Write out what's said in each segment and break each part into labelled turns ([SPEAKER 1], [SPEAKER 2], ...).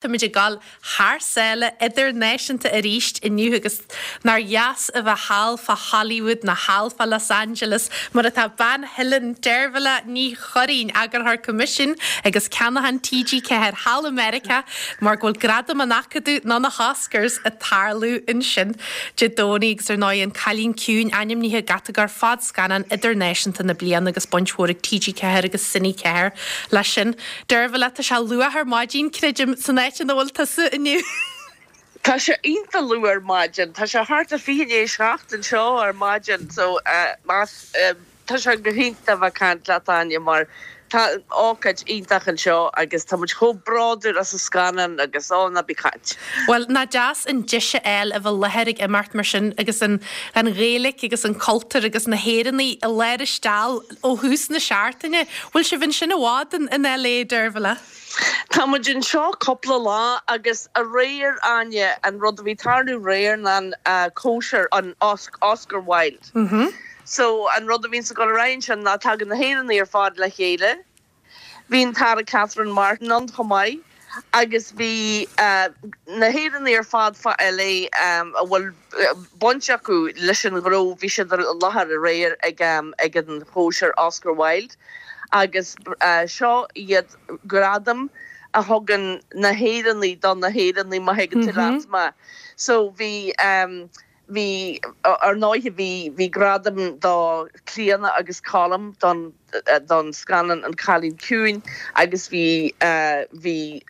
[SPEAKER 1] Táimid ag dul thar sáile idirnáisiúnta arís inniu agus nár dheas a bheith thall fá Hollywood nó thall fá Los Angeles mar atá bean Theilinn, Deirbhile Ní Churraoin, Eagarthóir Coimisiúin agus Ceannacháin TG4 thall i Meiriceá mar go bhfuil Gradaim an Acadaimh nó na hOscars ag tarlú ansin Dé Domhnaigh agus ar ndóigh An Cailín Ciúin ainmnithe i gcatagóir Fadscannán Idirnáisiúnta na Bliana agus baint mhór ag TG4 agus Cine 4 leis sin. Deirbhile, tá sé luath ar maidin, creidim, san áit ina bhfuil tusa inniu.
[SPEAKER 2] Tá sé iontach luath ar maidin. Tá sé thart ar 6:40 anseo ar maidin so más, tá sé go hiontach a bheith ag caint leat Áine mar tá ócáid iontach anseo agus tá muid chomh bródúil as an scannán agus ó ná bí ag caint.
[SPEAKER 1] Bhuel, nach deas an deis a fháil a bheith i láthair ag imeacht mar sin agus an Ghaeilge agus an cultúr agus na hÉireannaigh i lár an steall. Ó thús na seachtaine. Bhfuil sibh ansin i bhfad in LA, Deirbhile?
[SPEAKER 2] Tá muid anseo cúpla lá agus aréir, Áine, an rud a bhí ag tarlú aréir ná an cóisir, an Oscar Wilde. So an rud a bhíonns ag dul ar aghaidh ansin ná tagann na hÉireannaigh ar fad le chéile. Bhí an tAire Catherine Martin ann chomh maith agus bhí na hÉireannaigh ar fad fá LA a bhfuil baint acu leis an ghnó, bhí siad i láthair aréir ag an chóisir Oscar Wilde agus seo iad gradaim a thugann na hÉireannaigh do na hÉireannaigh má thuigeann tú leat mé. So bhí. Bhí, ar ndóighe, bhí, bhí gradam do Clíona agus Colm don, don scannán An Cailín Ciúin agus bhí, bhí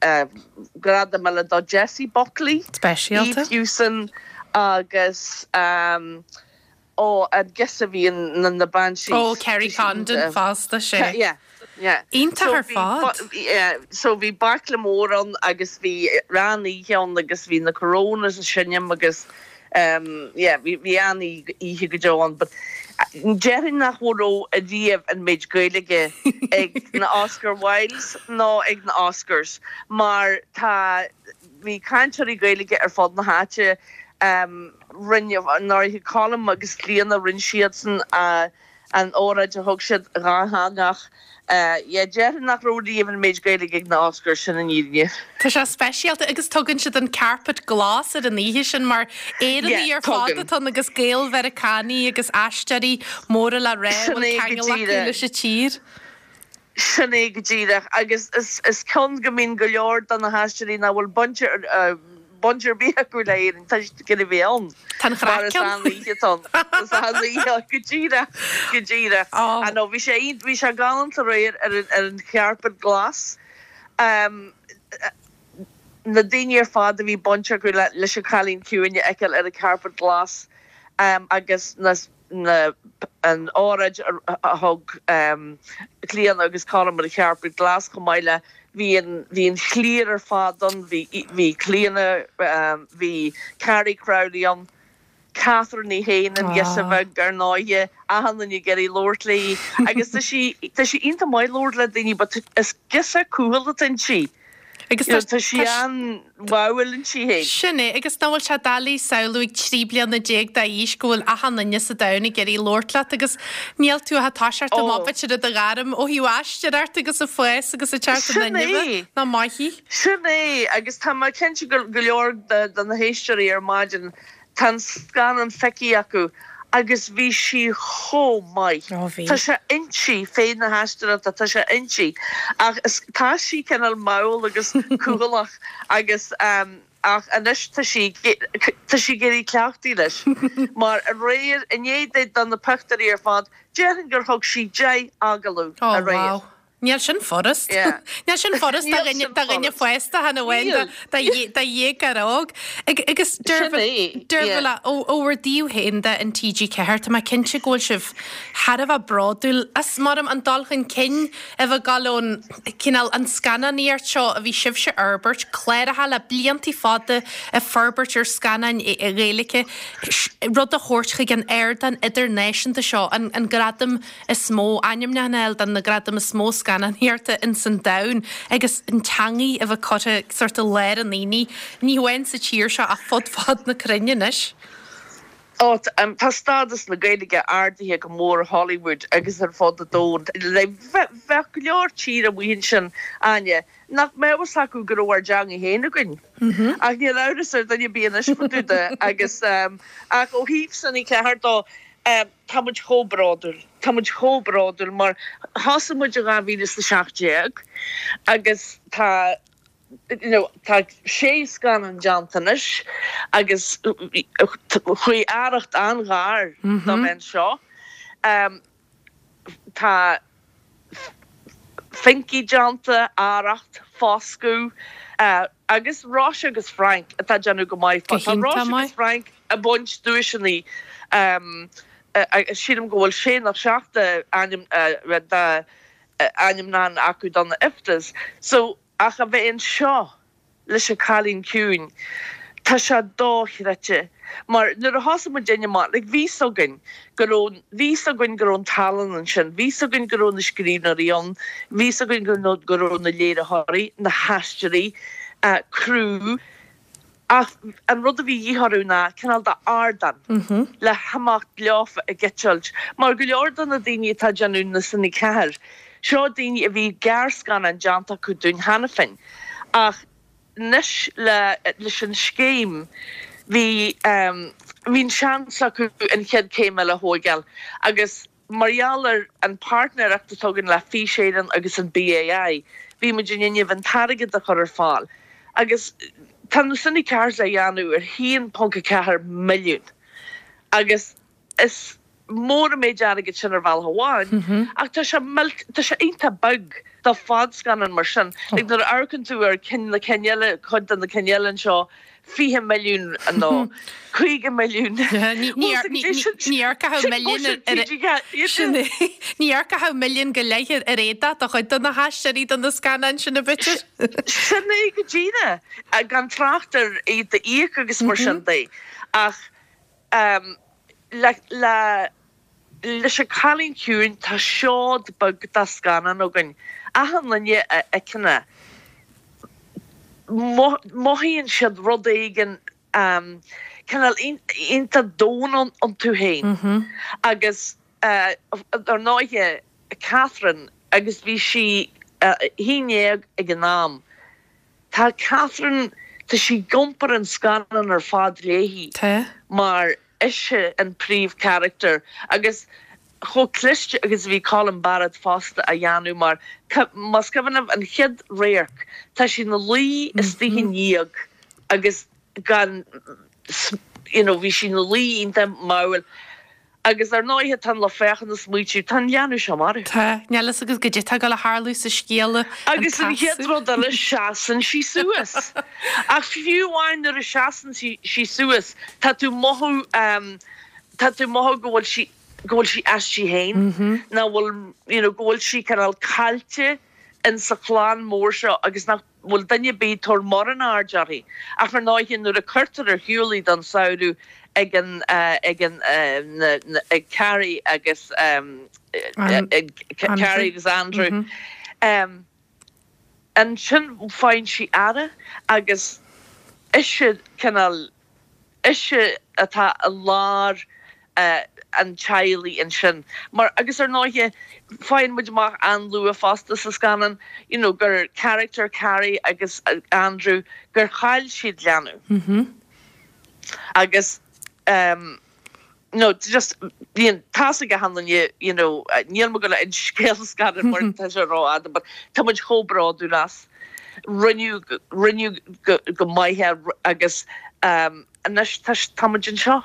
[SPEAKER 2] gradam eile do Jessie Buckley,
[SPEAKER 1] Speisialta.
[SPEAKER 2] Eve Hewson agus ó, an girseach a bhí in na Banshees.
[SPEAKER 1] Ó, Kerry Condon fosta, sea.
[SPEAKER 2] Yeah. Yeah.
[SPEAKER 1] Iontach ar fad.
[SPEAKER 2] Yeah, so bhí baicle mór ann agus bhí an-oíche ann agus bhí na Coronas ag seinm agus um yeah bhí bhí an-oíche go deo ann but déarfainn nach raibh ariamh an méid Gaeilge ag na Oscar Wildes nó ag na Oscars mar tá bhí cainteoirí Gaeilge ar fud na háite um rinne ar ndóighe Colm agus Clíona rinne siadsan a An óráid a thug siad dhátheangach. Yeah, déarfainn nach raibh riamh an méid Gaeilge ag na Oscars, sin an fhírinne.
[SPEAKER 1] Tá sé speisialta agus tugann siad an carpet glas ar an oíche sin mar Éireannaigh ar fad atá ann agus Gael-Mheiriceánaigh agus aisteoirí móra le rá a bhfuil ceangal acu leis an tír.
[SPEAKER 2] Sin é go díreach. Agus is ceann go mbíonn go leor de na haisteoirí nach bhfuil baint baint ar bith acu le hÉirinn, tá siad ag iarraidh a bheith ann.
[SPEAKER 1] Tá an
[SPEAKER 2] Mar is an-oíche atá ann. Is an-oíche, go díreach, go díreach. I know, bhí sé iontach, bhí sé galánta aréir ar an, ar an charpet glas. Na daoine ar fad a bhí baint acu le, leis an Chailín Ciúin a fheiceáil ar an carpet glas agus na, na, an óráid a thug Clíona agus Colm ar an charpet glas chomh maith le, bhí an, bhí an chliar ar fad ann, bhí, bhí Clíona, bhí Carrie Crowley ann, Catherine í féin, an ghirseach bheag ar ndóighe, achan duine ag iarraidh labhairt léi agus tá sí, tá sí iontach maith labhairt le daoine but is girseach cúthail atá inti.
[SPEAKER 1] Agus tá,
[SPEAKER 2] tá sí an-bháúil inti féin.
[SPEAKER 1] Sin é, agus nach bhfuil sé doiligh samhlú ag 13 bliana d'aois go bhfuil achan duine sa domhan ag iarraidh labhairt leat agus níl tú ach ag toiseacht amach b'fhéidir i do ghairm ó thaobh aisteoireacht agus ag fás agus ag teacht
[SPEAKER 2] in
[SPEAKER 1] inmhe. Nach maith í?
[SPEAKER 2] Sin é, agus tá mé cinnte go go leor de na héisteoirí ar maidin Tá an scannán feicthe acu agus bhí sí chomh maith.
[SPEAKER 1] Ó bhí.
[SPEAKER 2] Tá sé inti, féith na haisteoireachta, tá sé inti. Ach is, tá sí cineál mall agus cúthaileach agus ach anois tá sí, tá sí ag éirí cleachtaithe leis. Mar aréir, i ndiaidh di do na pictiúirí ar fad, déarfainn gur thug sí 10 agallamh
[SPEAKER 1] Ó
[SPEAKER 2] aréir.
[SPEAKER 1] wow. Níl sin furast. Níl sin furast do dhuine fásta chan amháin do dhéagóir óg. Agus Deirbhile, ó bhur dtaobh féin de in TG4, tá mé cinnte go bhfuil sibh thar a bheith bródúil as, maram, an dul chun cinn a bheith ag dul ón cineál an scannánaíocht seo a bhí sibhse a fhorbairt, cláracha le blianta fada ag forbairt ar scannáin Ghaeilge, rud a thabhairt chuig an ardán idirnáisiúnta seo, an gradam is mó ainmniúchán a fháil do na gradaim is mó scannánaíochta ins an domhan agus an teangaidh a bheith curtha sórt i lár an aonaigh, ní hamháin sa tír seo ach fud fad na cruinne anois.
[SPEAKER 2] Ó, tá stádas na Gaeilge ardaithe go mór i Hollywood agus ar fud an domhain. Bheadh go leor tír amuigh ansin, Áine, nach mbeadh fhios acu go raibh ár dteanga féin againn. Ach níl amhras ar dhuine ar bith anois fá dtaobh de. Agus, ach ó thaobh Cine 4 dó, tá muid chomh bródúil. Tá muid chomh bródúil mar thosaigh muid i 2017 agus tá, you know, tá sé scannán déanta anois agus chuaigh Arracht an-ghar do bheith anseo. Tá Finky déanta, Arracht, Foscadh agus Róise agus Frank atá ag déanamh go maith.
[SPEAKER 1] Go
[SPEAKER 2] Tá
[SPEAKER 1] hiontach
[SPEAKER 2] Róise agus
[SPEAKER 1] maith.
[SPEAKER 2] Frank ag baint duaiseanna, sílim go bhfuil sé nó seacht ainm de ainmniúchán acu do na IFTAs. So, ach a bheith anseo leis an Cailín Ciúin, tá sé dochreidte. Mar nuair a thosaigh muidinne amach, like bhí 's againn go raibh, bhí 's againn go raibh an tallann ansin, bhí 's againn go raibh na scríbhneoirí ann, bhí 's againn go go raibh na léiritheoirí, na haisteoirí, criú, Ach an rud a bhí de dhíth orthu ná cineál de ardán le himeacht leofa ag eitilt. Mar go leor de na daoine atá ag déanamh na Cine 4, seo daoine a bhí gearrscannáin déanta acu dúinn cheana féin. Ach anois le leis an scéim bhí bhí an seans acu an chéad céim eile a thóigeáil agus Mar gheall ar an páirtnéireacht atá againn le Fís Éireann agus an BAI, bhí muid in innimh an t-airgead a chur ar fáil agus tá na Cine 4s á dhéanamh ar 1.4 milliún agus is mór an méid airgid sin ar bhealach amháin ach tá sé tá sé iontach beag do fadscannán mar sin. Like nuair a amharcann tú ar cinn na cinn eile, cuid de na cinn eile anseo, 20 milliún nó 50 milliún.
[SPEAKER 1] Ní amharcfá milliún ar Ní amharcfá milliún go leith ar éadach do chuid de na haisteoirí do na scannáin sin a b'fhéidir.
[SPEAKER 2] Sin é go díreach, gan trácht ar iad a íoc agus mar sin de. Ach le le leis an Cailín Ciúin tá seod beag de scannán againn. Achan duine a fheiceann é, mothaíonn siad rud éigin cineál iontach domhain iontu féin. Agus ar ndóighe Catherine, agus bhí sí 11 ag an am, tá Catherine, tá sí ag iompar an scannán ar fad léi mar ise an príomhcharachtar agus chomh cliste agus a bhí Colin Barrett fosta á dhéanamh mar más cuimhin libh an chéad radharc tá sí ina luí istigh i ndíog agus gan you know bhí sí ina luí iontach mall Agus ar ndóighe tá an lucht féachana ag smaoitiú, tá an leanbh seo marbh.
[SPEAKER 1] Tá, níl fhios agat goidé tá ag dul a tharlú sa scéal, an
[SPEAKER 2] Agus an chéad
[SPEAKER 1] casadh.
[SPEAKER 2] rud eile, seasann sí suas. Ach fiú amháin nuair a seasann sí suas, tá tú mothú, tá tú mothú go bhfuil sí, go bhfuil sí aisti féin, nach bhfuil, you know, go bhfuil sí cineál caillte in sa chlann mór seo agus nach. bhfuil duine ar bith ag tabhairt mórán aird uirthi. Ach ar ndóighe nuair a cuirtear ar shiúl í don samhradh ag an ag an na na ag Carrie agus ag Carrie agus Andrew ansin faigheann sí aire agus ise cineál ise atá i lár an teaghlaigh ansin. Mar, agus ar ndóighe, faigheann muid amach an-luath fosta sa scannán, you know, gur character Carrie agus Andrew, gur chaill siad leanbh. Agus ehm, no, just, bíonn, tá's ag achan duine, you know, níl mé ag gabháil a inse scéal an scannáin mar tá sé rófhada, but tá muid chomh bródúil as. Rinneadh, rinneadh go, go maith é agus ehm, anois tá, tá muid anseo.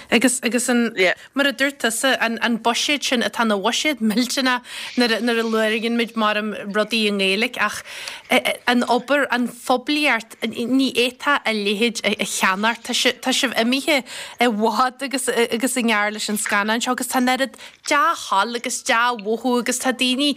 [SPEAKER 1] Agus, agus an, Yeah. mar a dúirt tusa, an, an buiséad sin atá ina bhuiséad millteanach nuair a, nuair a labhraíonn muid mar rudaí i nGaeilge ach an obair, an phoiblíocht, ní fhéadfá a leithéid a, a cheannacht. Tá si, tá sibh imithe i bhfad agus, agus i ngearr leis an scannán seo agus tá an oiread dea-thoil agus dea-mhothú agus tá daoine,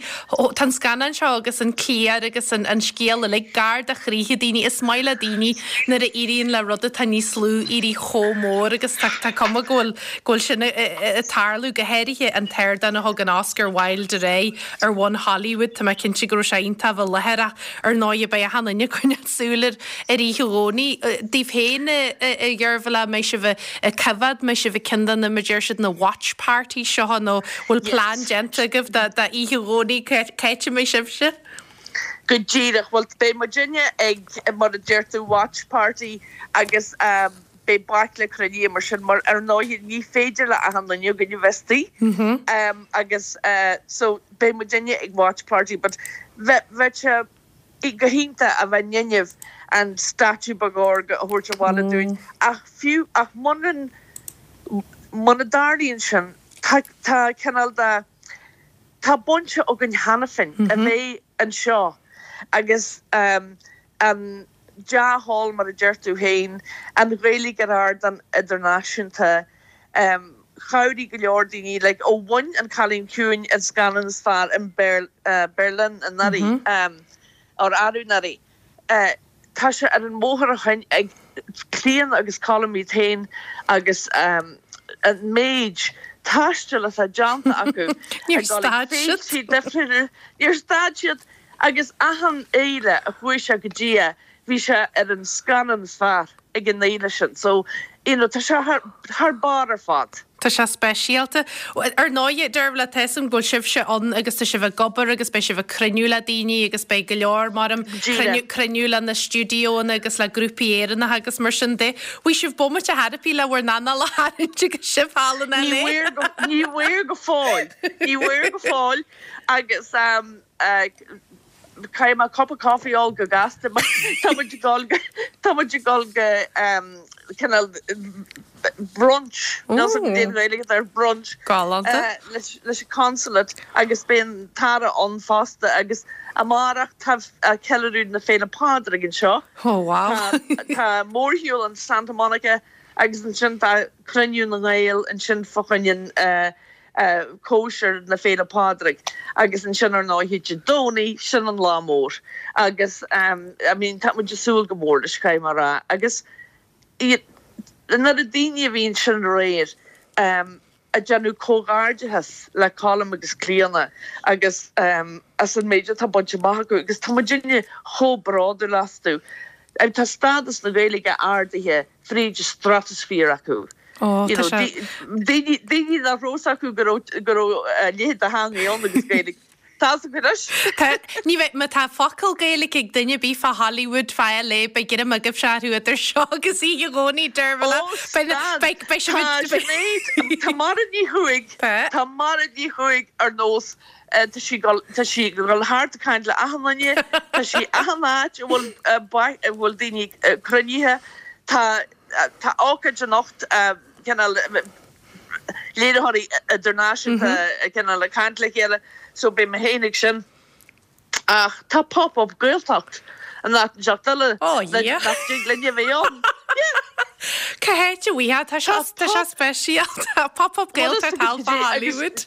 [SPEAKER 1] tá an scannán seo agus an cliar agus an an scéal uilig gar do chroíthe daoine. Is maith le daoine nuair a éiríonn le rud atá níos lú éirí chomh mór agus tá tá. cuma go bhfuil, go bhfuil sin ag tarlú, go háirithe an t-ardán a thug an Oscar Wilde ar aghaidh ar bhonn Hollywood, tá mé cinnte go raibh sé iontach a bheith i láthair ach ar ndóighe beidh achan duine ag coinneáil súil ar ar oíche Dhomhnaigh. Daoibh féin, a Dheirbhile, an mbeidh sibh ag coimhéad, an mbeidh sibh ag ceann de na, mar a deir siad, na watch parties seo nó bhfuil plean déanta agaibh d'oíche Dhomhnaigh, cá háit a mbeidh sibhse?
[SPEAKER 2] Go díreach, bhuel beidh muidinne ag, mar a deir tú, watch party agus beidh baicle cruinnithe mar sin mar ar ndóighe ní féidir le achan duine againn a bheith istigh agus so beidh muidinne ag watch party but bheadh sé go hiontach a bheith in ann an statue beag órga a thabhairt abhaile dúinn ach fiú ach muna muna dtarlaíonn sin tá tá cineál de tá baint againn cheana féin a bheith anseo agus an dea-thoil mar a deir tú féin, an Ghaeilge ar ardán idirnáisiúnta. Chabhraigh go leor daoine, like, ó bhain An Cailín Ciúin an scannán is fearr in Berlin anuraidh, or arú anuraidh. Tá sé ar an mbóthar ó shin ag Clíodhna agus Colm iad féin agus an méid taistil atá déanta acu
[SPEAKER 1] Níor stad siad.
[SPEAKER 2] Níor stad siad. Agus achan fhéile a chuaigh sé go dtí é, bhí sé ar an scannán is fearr ag an fhéile sin. So, you know, tá sé thar, thar barr ar fad.
[SPEAKER 1] Tá sé speisialta. Ar ndóighe, Deirbhile, tá 'fhios a'm go bhfuil sibhse ann agus tá sibh ag obair agus beidh sibh ag cruinniú le daoine agus beidh go leor, maram, cruinniú, cruinniú le na stiúideóanna agus le grúpaí Éireannacha agus mar sin de. Bhfuil sibh bomaite therapy le bhur n-anáil a tharraingt agus sibh thall in
[SPEAKER 2] LA? Ní bhfuair go, ní bhfuair go fóill. Ní bhfuair go fóill agus, Caithfidh mé cupa coffee a ól go gasta mar tá muid ag dul go, tá muid ag dul go cineál brunch, níl 'fhios a'm cad é an Ghaeilge atá ar brunch,
[SPEAKER 1] Galánta.
[SPEAKER 2] leis leis an consulate agus beidh an tAire ann fosta agus amárach tá ceiliúradh na Féile Pádraig anseo.
[SPEAKER 1] Oh wow.
[SPEAKER 2] Tá mórshiúl in Santa Monica agus ansin tá cruinniú na nGael ansin fá choinne an cóisir na Féile Pádraig agus ansin ar ndóighe Dé Domhnaigh, sin an lá mór agus I mean tá muid ag súil go mór leis caithfidh mé a rá agus an oiread daoine a bhí ansin aréir ag déanamh comhghairdeachas le Colm agus Clíona agus as an méid atá bainte amach acu agus tá muidinne chomh bródúil astu. Tá stádas na Gaeilge ardaithe fríd an stratosphere acu.
[SPEAKER 1] Ó, tá sé.
[SPEAKER 2] Daoine, daoine nach raibh 'fhios acu go raibh, go raibh a leithéid de theangaidh ann agus Gaeilge. Tá 'fhios acu anois.
[SPEAKER 1] Tá, ní bheidh, má tá focal Gaeilge ag duine ar bith fá Hollywood, fá LA, beidh greim agaibhse orthu idir seo agus oíche Dhomhnaigh, Deirbhile.
[SPEAKER 2] Ó, stad. Beidh, beidh sibh Tá Sinéad, tá Mairéad Ní Chuaig,
[SPEAKER 1] Tá.
[SPEAKER 2] tá Mairéad Ní Chuaig ar nós, tá sí ag dul, tá sí ag dul thart ag caint le achan duine, tá sí achan áit a bhfuil, a bhfuil daoine cruinnithe, tá, Tá ócáid anocht, cineál léiritheoirí idirnáisiúnta cineál ag caint le chéile, so beidh mé féin ag sin. Ach tá Pop Up Gaeltacht in áit inteacht eile nach dtig linn a bheith ann. Yeah!
[SPEAKER 1] Cá háit a bhfaighfeá? Tá sé tá sé speisialta. Pop Up Gaeltacht thall fá Hollywood.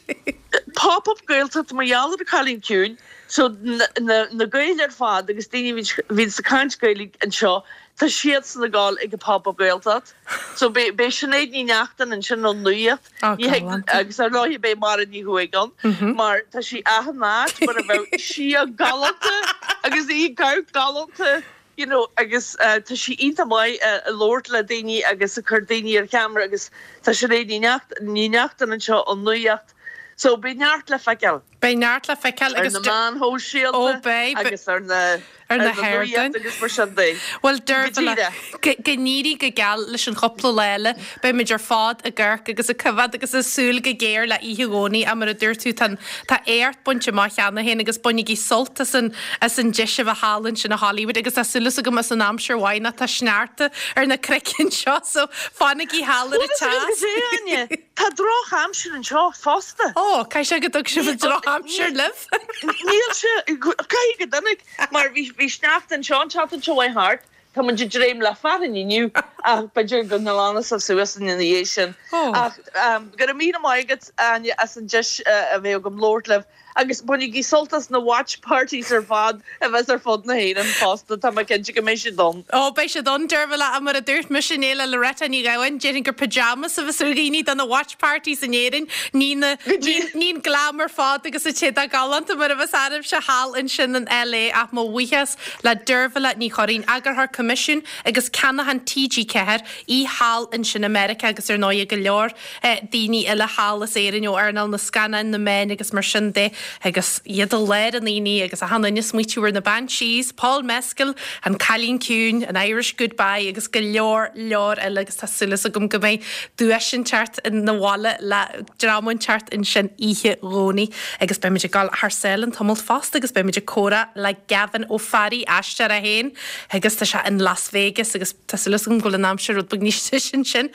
[SPEAKER 2] Pop Up Gaeltacht mar gheall ar an Cailín Ciúin, so na Gaeil ar fad agus daoine a bhíonns ag caint Gaeilge anseo, Tá siadsan ag dul ag an Pop Up Gaeltacht. So beidh Sinéad Ní Neachtain ansin ón Nuacht.
[SPEAKER 1] Ó, galánta.
[SPEAKER 2] Agus ar ndóigh beidh Máire Ní Chuaig ann mar tá sí achan áit mar a bheadh sí galánta agus í ag amharc galánta you know agus tá sí iontach maith ag labhairt le daoine agus ag cur daoine ar cheamara agus tá Sinéad Ní Neachtain anseo ón Nuacht. So beidh neart le feiceáil.
[SPEAKER 1] Beidh neart le feiceáil
[SPEAKER 2] agus. Ar na meáin shóisialta agus ar na
[SPEAKER 1] ar na hardáin
[SPEAKER 2] agus mar sin de.
[SPEAKER 1] Bhuel, Deirbhile, go n-éirí go geal leis an chúpla lá eile. Beimid ar fad ag amharc agus ag coimhéad agus ag súil go géar le oíche Dhomhnaigh ach mar a dúirt tú, tá tá éacht bainte amach cheana féin agus bainigí sult as an as an deis a bheith thall ansin i Hollywood agus tá súil agam as an aimsir mhaith nó tá sneachta ar na cnoic anseo so fanaigí thall ar an
[SPEAKER 2] teas. Tá drochaimsir anseo fosta.
[SPEAKER 1] Ó, caithfidh sé go dtug sibh an drochaimsir libh.
[SPEAKER 2] Níl sé, caithfidh go dtáinig, mar bhí, bhí sneachta anseo an tseachtain seo chuaigh thart, tá muid ag dréim le fearthainn inniu. Ach b'fhéidir go nglanfaidh sibh suas ina dhiaidh sin. Ach go raibh míle maith agat, Áine, as an deis a bheith agam labhairt libh. Agus bainigí sult as na watch parties ar fad a bheas ar fud na hÉireann fosta, tá mé cinnte go mbeidh siad ann.
[SPEAKER 1] Ó, beidh siad ann, Dervla, ach mar a dúirt mise inné le Loretta Ní Ghabháin, déarfainn gur pyjamas a bheas ar dhaoine do na watch parties in Éirinn, ní na, ní an glam ar fad agus an t-éadach galánta mar a bheas oraibhse thall ansin in LA ach mo bhuíochas le Dervla Ní Churraoin, Eagarthóir Coimisiún agus Ceannachán TG4, í thall ansin i Meiriceá agus ar ndóighe go leor daoine eile thall as Éirinn ó earnáil na scannáin, na meáin agus mar sin de agus iad i lár an aonaigh agus achan duine ag smaoitiú ar na Banshees, Paul Mescal, An Cailín Ciúin, An Irish Goodbye agus go leor leor eile agus tá súil agam go mbeidh duais inteacht na bhaile le dream inteacht ansin oíche Dhomhnaigh agus beimid ag dul thar sáile an tamall fosta agus beimid ag comhrá le Gavin Ó Fearraigh, aisteoir é féin agus tá sé in Las Vegas agus tá súil agam go bhfuil an aimsir rud beag níos deise ansin.